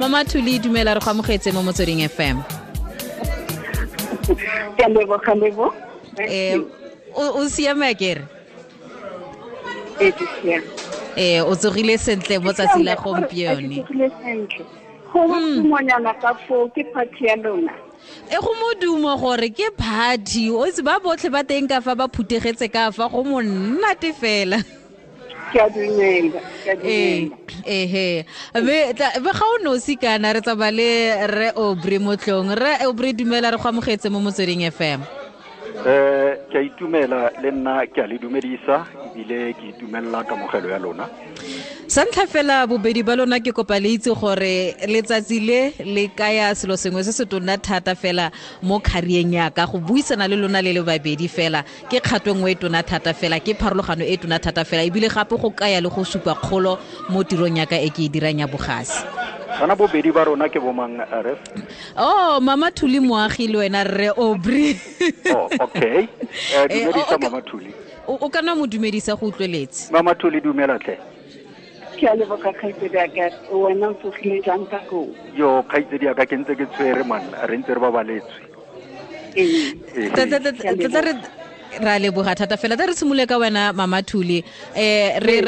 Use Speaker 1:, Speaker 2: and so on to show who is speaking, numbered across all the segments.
Speaker 1: Mama Thuli, dumela, re go amogetse mo Motsweding FM.
Speaker 2: Ke a leboga, Lebo.
Speaker 1: O siame akere?
Speaker 2: Ee, ke siame.
Speaker 1: O tsogile sentle mo tsatsi la gompieno?
Speaker 2: Ke tsogile sentle. Go modumonyana ka foo, ke party ya lona.
Speaker 1: E go modumo gore ke party, o itse ba botlhe ba teng ka fa ba phutegetse ka fa, go monate fela.
Speaker 2: Ke a dumela, ke a dumela.
Speaker 1: Ehe. Be ga o nosi kana re tsamaya le Rre Aubrey Motlong. Rre Aubrey, dumela, re go amogetse mo Motsweding FM.
Speaker 3: Ke a itumela le nna, ke a le dumedisa ebile ke itumelela kamogelo ya lona.
Speaker 1: Sa ntlha fela, bobedi ba lona ke kopa le itse gore letsatsi le le kaya selo sengwe se se tona thata fela mo career-eng ya ka. Go buisana le lona le le babedi fela ke kgato nngwe e tona thata fela, ke pharologano e tona thata fela, ebile gape go kaya le go supa kgolo mo tirong ya ka e ke e dirang ya bogasi.
Speaker 3: Kana bobedi ba rona ke bomang, Ref?
Speaker 1: Oh, Mama Thuli Moagi le wena Rre Aubrey.
Speaker 3: Oh, okay. Dumedisa Mama Thuli.
Speaker 1: O ka nna mo dumedisa go utlweletse.
Speaker 3: Mama Thuli, dumela tlhe.
Speaker 2: Ke a leboga, kgaitsedi ya ka. Wena o tsogile jang ka koo?
Speaker 3: Yo, kgaitsedi ya ka, ke ntse ke tshwere man, re ntse re babaletswe.
Speaker 1: Tla re ra leboga thata fela. Tla re simolole ka wena, Mama Thuli. Re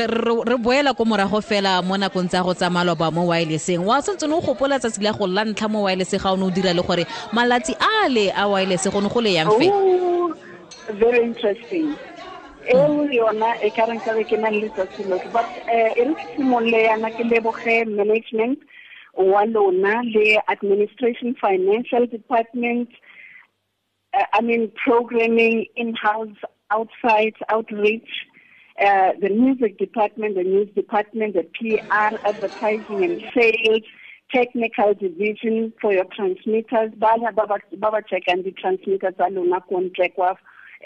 Speaker 1: boela ko morago fela mo nakong tsa go tsa maloba mo wirelesseng. Wa santse o gopola tsatsi la go la ntlha mo wireless ga o ne o dira, le gore malatsi a le a wireless go ne go le yang fe?
Speaker 2: Oh, very interesting. Eo yona e ka reng ka be ke na le letsatsi lotlhe, but e re ke simolole yana ke leboge management wa lona le administration, financial department, I mean programming, in-house, outside, outreach, the music department, the news department, the PR, advertising and sales, technical division for your transmitters, ba ba check and the transmitters tsa lona ko ntle kwa,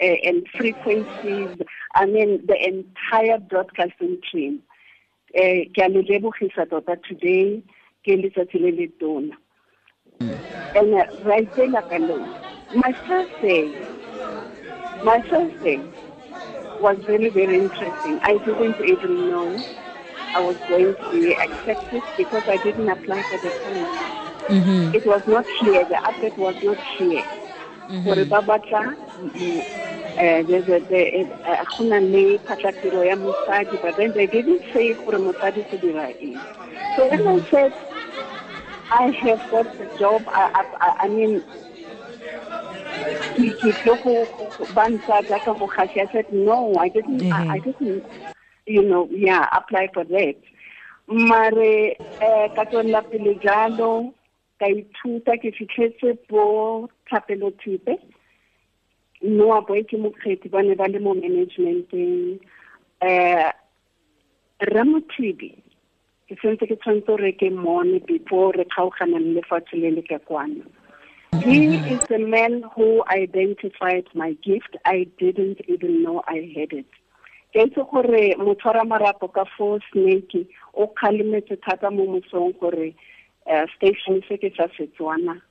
Speaker 2: and frequencies, I mean the entire broadcasting team. Ke a le lebogisa tota today, ke letsatsi le le tona. And right there ka lona. My first day was very, very interesting. I didn't even know I was going to be accepted because I didn't apply for the post. It was not clear. The advert was not clear. Gore ba batla, there's a, the, go na le phatlatiro ya mosadi, but then they didn't say gore mosadi go dira eng. So when I said I have got the job, I mean, ke tlo go ba ntsa jaaka mogasi, I said no, I didn't, I didn't, yeah, apply for that. Mare ka tswelela pele jalo, ka ithuta, ke fitlhetse bo Thapelo Thipe, Noa Boy ke mokgethi, ba ne ba le mo managementeng. Ramothibi, ke sentse ke tshwanetse gore ke mmone before re kgaogana le lefatshe le le ka kwano. He is the man who identified my gift. I didn't even know I had it. Ke itse gore motshwara marapo ka fo Snake o kgalemetse thata mo mosong gore station se ke sa Setswana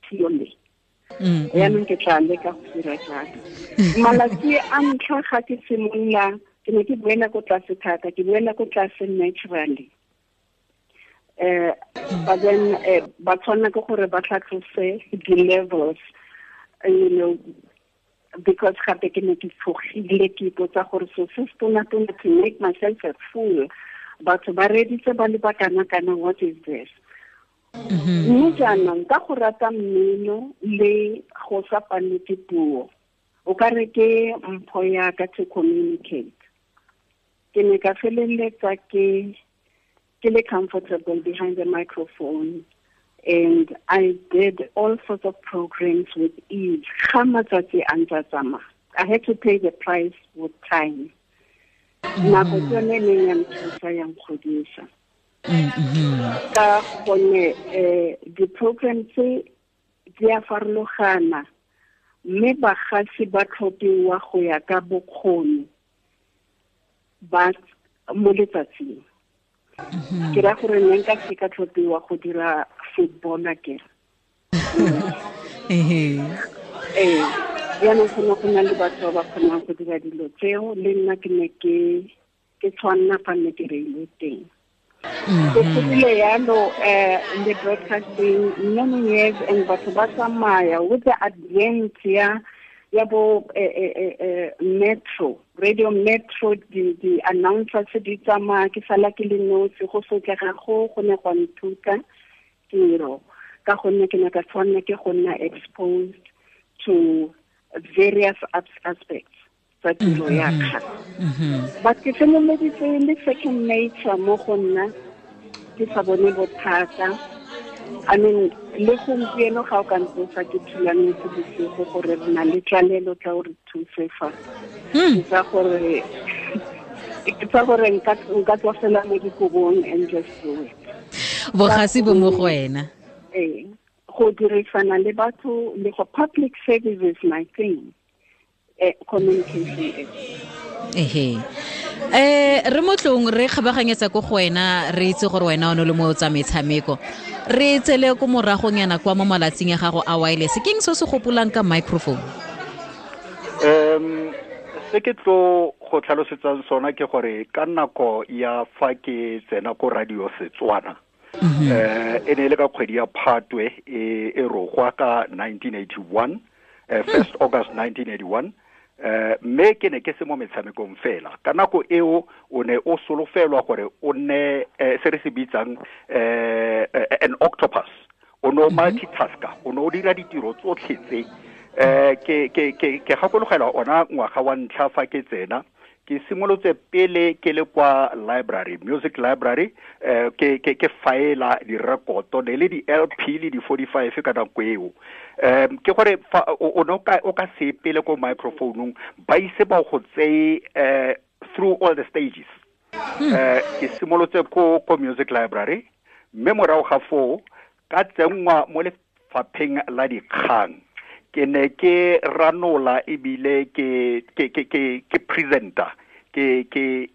Speaker 2: purely. Yaanong ke tla leka go dira jalo. Malatsi a ntlha ga ke simolola, ke ne ke boela ko tlase thata, ke boela ko tlase naturally. But then ba tshwanela ke gore ba tlhatlose di-levels, because gape ke ne ke tshogile, ke ipotsa gore so se se tona-tona, to make myself a fool, batho ba reditse ba le ba kana-kana, what is this? Mme jaanong ka go rata mmino le go sa palwe ke puo, o ka re ke mpho ya ka to communicate, ke ne ka feleletsa ke le comfortable behind the microphone, and I did all sorts of programs with ease. Ga matsatsi a ntse a tsamaya, I had to pay the price with time. Nako ke yone e neng ya nthusa, ya nkgodisa, ka gonne di-program tse di a farologana, mme bagasi ba tlhophiwa go ya ka bokgoni ba mo letsatsing. Ke ra gore nne nka se ka tlhophiwa go dira football akere. Ee, jaanong go ne go na le batho ba ba kgonang go dira dilo tseo, le nna ke ne ke tshwanna fa nne ke reilwe teng. So go bile yalo in the broadcasting many years, and batho ba tsamaya with the advent ya bo Metro, Radio Metro, di announcers di tsamaya, ke sala ke le nosi, go sotlega go ne gwa nthuta tiro, ka gonne ke ne ka tshwanela ke go nna exposed to various aspects tsa tiro ya ka. But ke feleleditse le second nature mo go nna, ke sa bone bothata. I mean, le gompieno ga o ka ntsosa ke thulametse bosigo gore re na le tlalelo tla o re thuse fa. Ke tsa gore nka tswa fela mo dikobong and just do it.
Speaker 1: Bogasi bo mo go wena.
Speaker 2: Ee, go dirisana le batho le go public service is my thing. Communication.
Speaker 1: Ehe. Re motlong re kgabaganyetsa ko go wena, re itse gore wena o ne le mo tsa metshameko. Re tsele ko moragong yana kwa mo malatsing ya gago a wireless. Ke eng se se gopolang ka microphone?
Speaker 3: Se ke tlo go tlhalosetsang sona ke gore ka nako ya fa ke tsena ko Radio Setswana, e ne le ka kgwedi ya Phatwe e rogwa ka 1981, 1st August 1981. Mme ke ne ke se mo metshamekong fela. Ka nako eo o ne o solofelwa gore o nne se re se bitsang an octopus. O ne o multitasker, o ne o dira ditiro tsotlhe tse. Ke gakologelwa ona ngwaga wa ntlha fa ke tsena, ke simolotse pele ke le kwa library, music library, ke faela direkoto ne le di LP le di 45 ka nako eo. Ke gore o ne o ka se pele ko microphone-ong, ba ise ba go tseye through all the stages. Ke simolotse ko music library, mme morago ga foo ka tsenngwa mo lefapheng la dikgang. Ke ne ke ranola ebile ke presenter, ke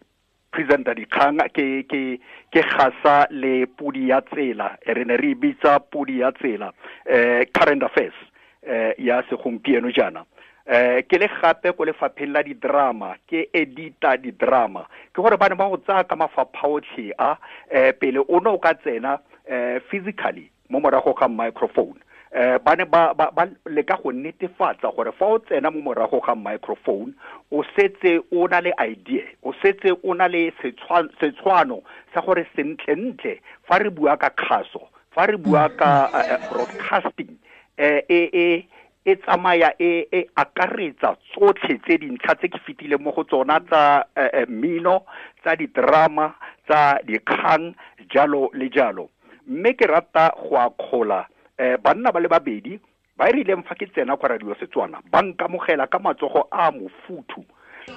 Speaker 3: presenter dikgang, ke gasa le pudi ya tsela, re ne re bitsa pudi ya tsela, current affairs ya segompieno jaana. Ke le gape ko lefapheng la di-drama, ke edita di-drama. Ke gore ba ne ba go tsaya ka mafapha otlhe a, pele o ne o ka tsena physically mo morago ga microphone. Ba ne ba leka go netefatsa gore fa o tsena mo morago ga microphone, o setse o na le idea, o setse o na le setshwano sa gore sentlentle fa re bua ka kgaso, fa re bua ka broadcasting, e tsamaya e akaretsa tsotlhe tse dintlha tse ke fetileng mo go tsona tsa mmino, tsa di-drama, tsa dikgang, jalo le jalo. Mme ke rata go akgola banna ba le babedi ba e rileng fa ke tsena kwa Radio Setswana, ba nkamogela ka matsogo a mofuthu,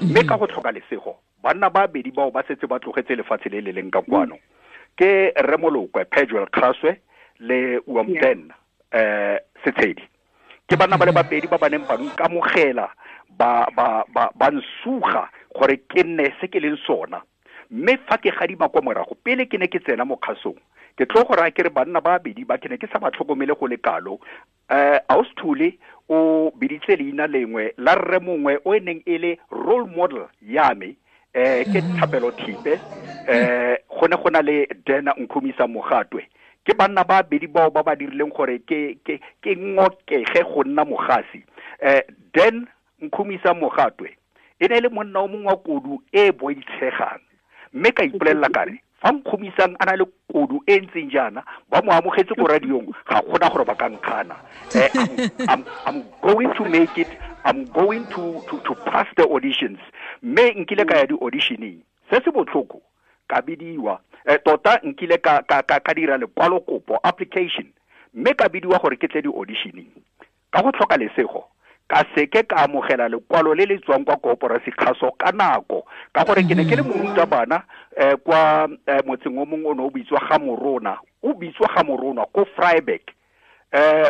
Speaker 3: mme ka go tlhoka lesego banna ba babedi bao ba setse ba tlogetse lefatshe le le leng ka kwano, ke Remolokwe Pejuel Kgaswe le Uamten Setshedi. Ke banna ba le babedi ba ba neng ba nkamogela, ba nsuga gore ke nne se ke leng sona. Mme fa ke gadima kwa morago, pele ke ne ke tsena mo kgasong, ke tlo go raya ke re banna ba babedi ba ke ne ke sa ba tlhokomele go le kalo. Austhule o biditse leina lengwe la rre mongwe o e neng e le role model ya me, ke Thapelo Thipe, go ne go na le Dena Nkhumisa Mogatwe. Ke banna ba babedi bao ba ba dirileng gore ke ngokege go nna mogasi. Den Nkhumisa Mogatwe e ne e le monna o mongwe wa kodu e boitshegang, mme ka ipolelela kare fa Nkhumisang a na le kodu e ntseng jaana, ba mo amogetse ko radiong, ga gona gore ba ka nkgana. I'm going to make it, I'm going to pass the auditions. Mme nkile ka ya di-auditioning, se se botlhoko ka bidiwa, tota nkile ka dira lekwalokopo application, mme ka bidiwa gore ke tle di-auditioning. Ka go tlhoka lesego ka seke ka amogela lekwalo le le tswang kwa koporasi kgaso ka nako, ka gore ke ne ke le morutabana kwa motseng o mongwe o ne o bitswa Gamorona, o bitswa Gamorona ko Vryburg.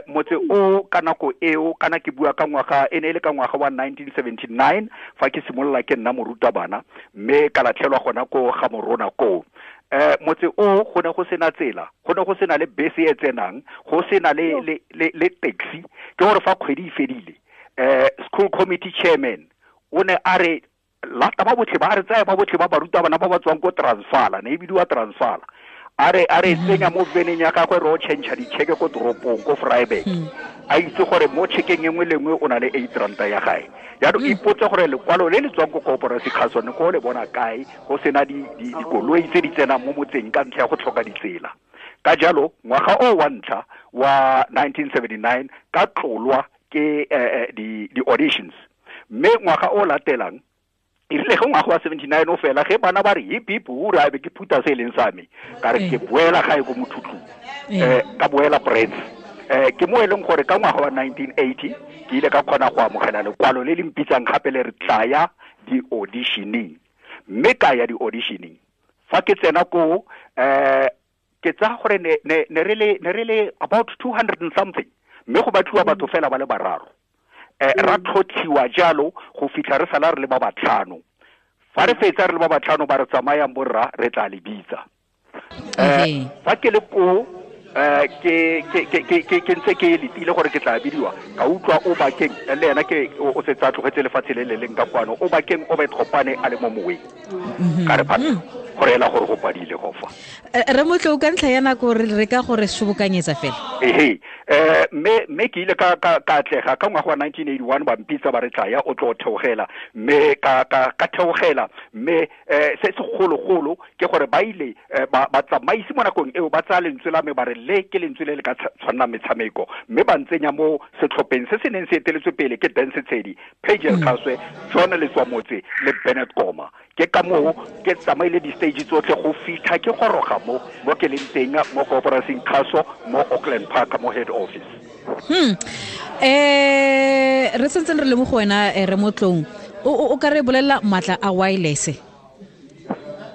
Speaker 3: Motse o ka nako eo, kana ke bua ka ngwaga, e ne e le ka ngwaga wa 1979 fa ke simolola ke nna morutabana, mme ka latlhelwa gona ko Gamorona koo. Motse o go ne go sena tsela, go ne go sena le bese e tsenang, go sena le taxi. Ke gore fa kgwedi e fedile, school committee chairman o ne a re lata ba botlhe ba re tsaya ba botlhe ba barutabana ba ba tswang ko Transvaal, ne e bidiwa Transvaal. A re tsenya mo veneng ya gagwe re o change ditšheke ko toropong ko Vryburg. A itse gore mo tšhekeng e nngwe le nngwe o na le 8 ranta ya gae. Jaanong ipotse gore lekwalo le le tswang ko koporasi kgaso ne ko le bona kae go sena dikoloi tse di tsenang mo motseng ka ntlha ya go tlhoka ditsela. Ka jalo ngwaga o wa ntlha wa 1979 ka tlolwa ke di-auditions. Mme ngwaga o latelang e rile ge ngwaga wa 79 o fela ge bana ba re hip hip hura be ke phuta se e leng sa me ka re ke boela gae ko Mothutlung, ka boela Brits. Ke mo e leng gore ka ngwaga wa 1980 ke ile ka kgona go amogela lekwalo le le mpitsang gape le re tlaya di-auditioning. Mme ka ya di-auditioning fa ke tsena ko ke tsaya gore ne re le about 200 and something, mme go batliwa batho fela ba le bararo. Ra tlhotlhiwa jalo go fitlha re sala re le ba batlhano. Fa re fetsa re le ba batlhano ba re tsamayang borra re tla le bitsa. Fa ke le ko ke ntse ke letile gore ke tla bidiwa, ka utlwa o bakeng le ena ke o setse a tlogetse lefatshe le le leng ka kwano, o bakeng o betlhopane a le mo moweng. Ka re phata gore ela gore go padile go fa.
Speaker 1: Re motlo ka ntlha ya nako re ka gore sobokanyetsa fela.
Speaker 3: Ehe, mme ke ile ka atlega ka ngwaga wa 1981 ba mpitsa ba re tlaya o tlo theogela, mme ka theogela. Mme se segologolo ke gore ba ile ba tsamaisi mo nakong eo ba tsaya lentswe la me ba re le ke lentswe le le ka tshwanna metshameko, mme ba ntsenya mo setlhopheng se se neng se eteletswe pele ke Dance Tshedi, Pagel Khaswe, John Letswamotse le Bennett Koma. Ke ka moo ke tsamaile di-stage tsotlhe go fitlha ke goroga mo ke leng teng mo koporasing kgaso mo Auckland Park mo head office.
Speaker 1: Re sentseng re le mo go wena re motlong, o ka re bolelela maatla a wireless?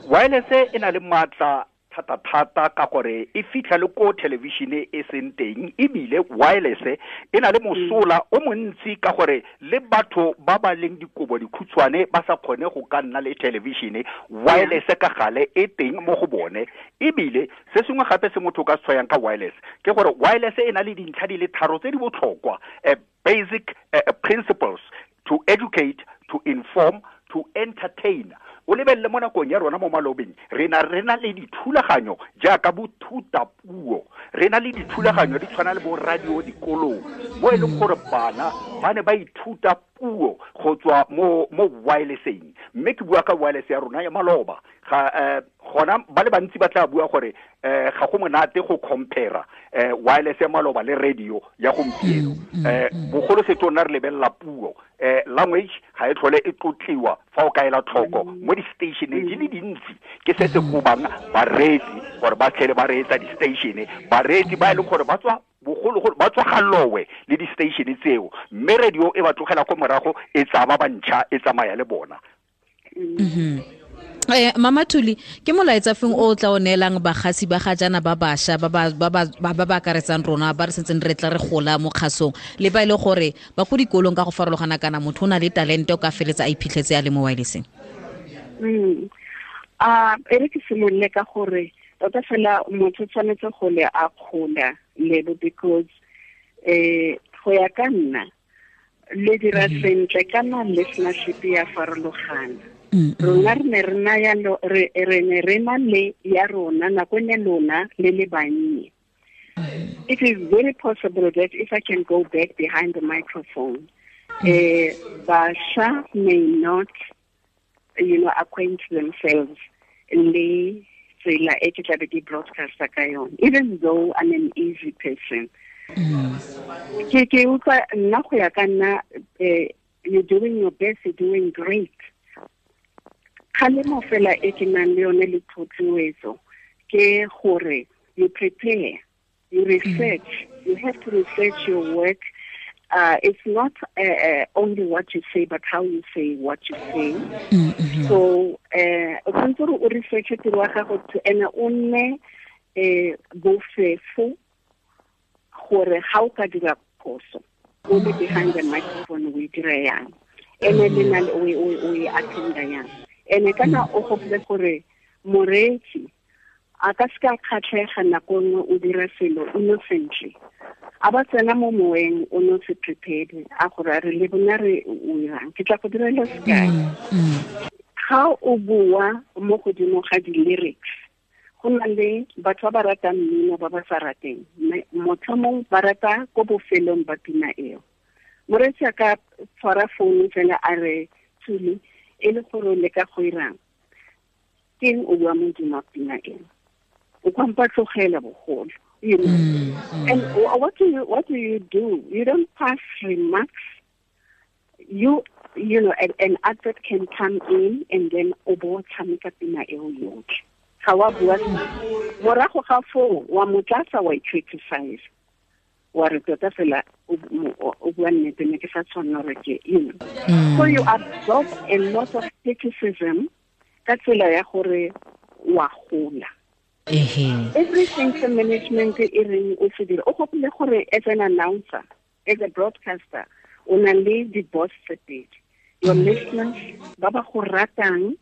Speaker 3: Wireless e na le maatla thata-thata ka gore e fitlha le ko television e seng teng, ebile wireless e na le mosola o montsi ka gore le batho ba ba leng dikobo dikhutshwane ba sa kgone go ka nna le television, wireless ka gale e teng mo go bone. Ebile se sengwe gape se motho o ka se tshwayang ka wireless ke gore wireless e na le dintlha di le tharo tse di botlhokwa, basic principles: to educate, to inform, to entertain. O lebelele mo nakong ya rona mo malobeng re na le dithulaganyo jaaka bothutapuo, re na le dithulaganyo di tshwana le bo radio dikolong mo e leng gore bana ba ne ba ithuta puo go tswa mo wirelesseng. Mme ke bua ka wireless ya rona ya maloba, ga gona ba le bantsi ba tla bua gore ga go monate go compare wireless ya maloba le radio ya gompieno. Bogolo setho nna re lebelela puo, language ga e tlhole e tlotliwa fa o kaela tlhoko mo di-stationeng di le dintsi. Ke se se gobang bareetsi gore ba tlhele ba reetsa di-station, bareetsi ba e leng gore ba tswa bogologolo ba tswa galowe le di-station tseo, mme radio e ba tlogela ko morago e tsaya ba bantšha e tsamaya le bona.
Speaker 1: Mama Thuli, ke molaetsa feng o tla o neelang bagasi ba ga jaana ba bašwa ba ba akaretsang rona ba re sentseng re tla re gola mo kgasong, le ba e le gore ba ko dikolong ka go farologana, kana motho o na le talente o ka feletsa a iphitlhetse a le mo wirelesseng?
Speaker 2: E re ke simolole ka gore tota fela motho tshwanetse go le a kgola lebo, because go ya ka nna le dira sentle kana listenership ya farologana. Rona re ne re na ya re ne re na le ya rona nako ne lona le le bannye. It is very possible that if I can go back behind the microphone, basha may not, acquaint themselves le tsela e ke tlabe ke broadcaster ka yone, even though I'm an easy person. Ke utlwa nna go ya ka nna, you're doing your best, you're doing great. Kgalemo fela e ke nang le yone le thotloetso ke gore you prepare, you research, you have to research your work. It's not only what you say, but how you say what you say. So, o tshwanetse gore o research tiro ya gago to ene o nne bofefo gore ga o ka dira phoso o le behind the microphone o e dira yang, ene le na o e attenda yang. Ene kana o gopole gore moreetsi a ka se ka kgatlhega nako nngwe o dira selo innocently, a ba tsena mo moweng o no se prepared a gore a re le bona re o irang. Ke tla go direla sekai, ga o bua mo godimo ga di-lyrics Go na le batho ba ba ratang mmino ba ba sa rateng, motho mongwe ba rata ko bofelong ba pina eo. Moreetsi a ka tshwara founu fela a re Thuli, e le gore o leka go irang, keng o bua modimo wa pina eo, o kwampa tlogela bogolo, you know. And what do you do? You don't pass remarks. You know, an advert can come in and then o bo tshameka pina eo yotlhe. Ga wa bua morago ga foo wa motlatsa wa i-criticize, wa re tota fela o bua nnete, ne ke sa tshwanela gore ke, you know. So you absorb a lot of criticism ka tsela ya gore wa gola. Everything the management e reng o se dire, o gopole gore as an announcer, as a broadcaster, o na le di-boss tse pedi. Your listeners ba ba go ratang,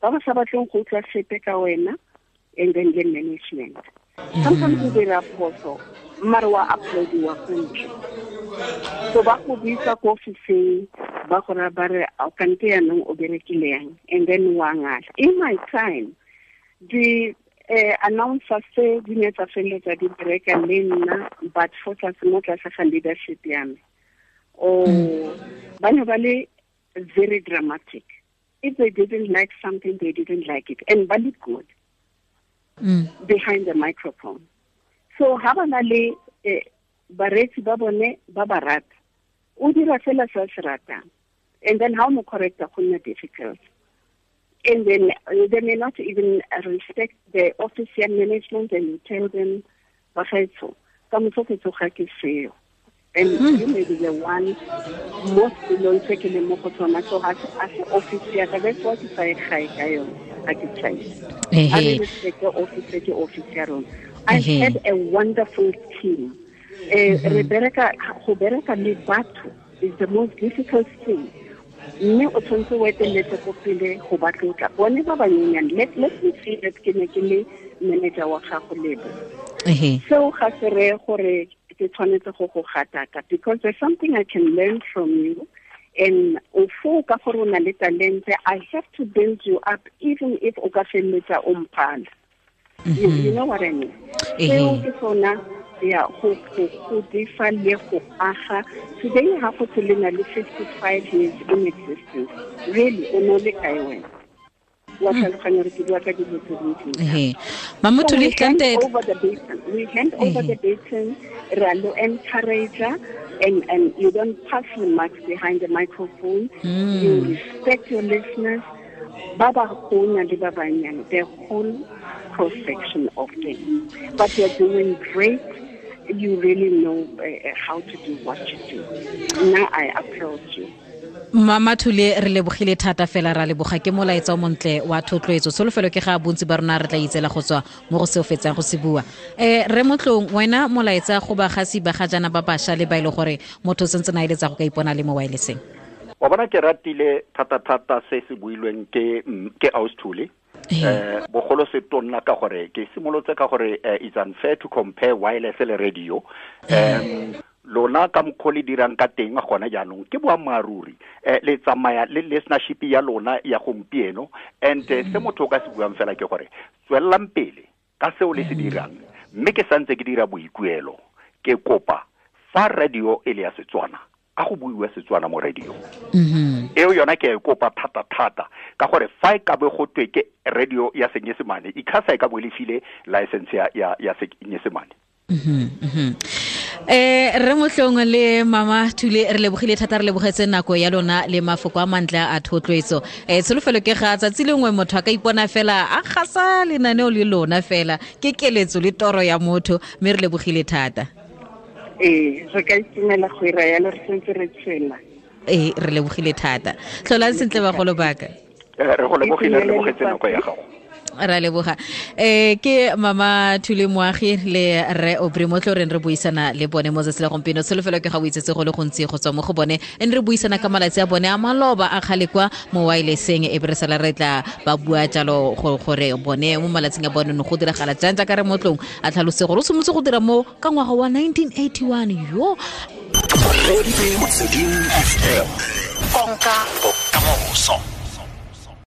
Speaker 2: ba ba sa batleng go utlwa sepe ka wena, and then the management. Sometimes o dira phoso, mare wa uploadiwa ko ntle. So ba go bitsa ko ofising, ba go raya ba re, kante yaanong o berekile yang, and then wa ngala. In my time, the announcers tse di ne tsa feleletsa di bereka le nna, but for tlase mo tlase ga leadership ya me. Ba ne ba le very dramatic. If they didn't like something, they didn't like it. And ba le good behind the microphone. So ha ba na le bareetsi ba bone ba ba rata, o dira fela se se ratang. And then how mo correcta go nna difficult. And then they may not even respect the office management, and you tell them, bagaetsho, ka moso ke tsoga ke seo. And you may be the one most below se ke leng mo go tsona. So ga se office ya ka, that's what ke sa e gae ka yone, ga ke tšhaise. I respect the office, ke office ya rona. I've had a wonderful team. Re bereka, go bereka le batho is the most difficult thing. Mme o tshwanetse o eteletse ko pele go ba tlotla. Bone ba banyenyane, let me say that ke ne ke le manager wa gago lebo. Seo ga se reye gore ke tshwanetse go go gataka, because there's something I can learn from you, and o foo ka gore o na le talente, I have to build you up even if o ka feleletsa o mphala. You know what I mean? Seo ke sona ya go godisa le go aga. Today ha go tse le na le 55 years in existence, really o no le kae wena? Wa tlhaloganya re ke bua ka dilo tse dintsi.
Speaker 1: Mama Thuli,
Speaker 2: we hand over the baton, re a lo encourage, and you don't pass remarks behind the microphone. You respect your listeners. Ba ba gona le ba banyane, the whole cross section of them. But you're doing great. You really know how to do what you do. Now I applaud you.
Speaker 1: Mama Thuli, re lebogile thata fela, ra leboga ke molaetsa o montle wa thotloetso. Tsholofelo ke ga bontsi ba rona re tla itsela go tswa mo go seo fetsang go se bua. Re Motlong, wena molaetsa go bagasi ba ga jana ba basha le ba ile gore motho sentse na eletsa go ka ipona le mo wirelesseng.
Speaker 3: Wa bona ke ratile thata se se builweng ke Aus Thuli. Bogolo se tonna ka gore ke simolotse ka gore it's unfair to compare wireless le radio. Lona ka mokgwa le dirang ka teng gona jaanong ke boammaaruri, le tsamaya le listenership ya lona ya gompieno, and se motho o ka se buang fela ke gore tswelelang pele ka seo le se dirang, mme ke santse ke dira boikuelo, ke kopa fa radio e le ya Setswana, a go buiwe Setswana mo radio. Eo yona ke e kopa thata ka gore fa e ka be go twe ke radio ya Senyesemane, ICASA e ka bo le file license ya Senyesemane.
Speaker 1: Re Motlong le Mama Thuli, re lebogile thata, re lebogetse nako ya lona le mafoko a mantle a thotloetso. Tsholofelo ke ga tsatsi lengwe motho a ka ipona fela a gasa lenaneo le lona fela, ke keletso le toro ya motho, mme re lebogile thata.
Speaker 2: Re ka itumela go ira yalo, re sentse re tshela.
Speaker 1: Re lebogile thata. Tlholang sentle bagolo baka.
Speaker 3: Re go lebogile, re lebogetse nako ya gago.
Speaker 1: Ra leboga. Ke Mama Thuli Moagi le Rre Aubrey Motlo re buisana le bone mo tsatsi la gompieno. Tsholofelo ke ga o itsetse go le gontsi go tswa mo go bone, and re buisana ka malatsi a bone a maloba a kgale kwa mo wirelesseng, e be re sala re tla ba bua jalo gore bone mo malatsing a bone no go diragala jang, jaaka re Motlong a tlhalose gore o simolotse go dira mo ka ngwaga wa 1981. Yo
Speaker 4: Konka bokamoso.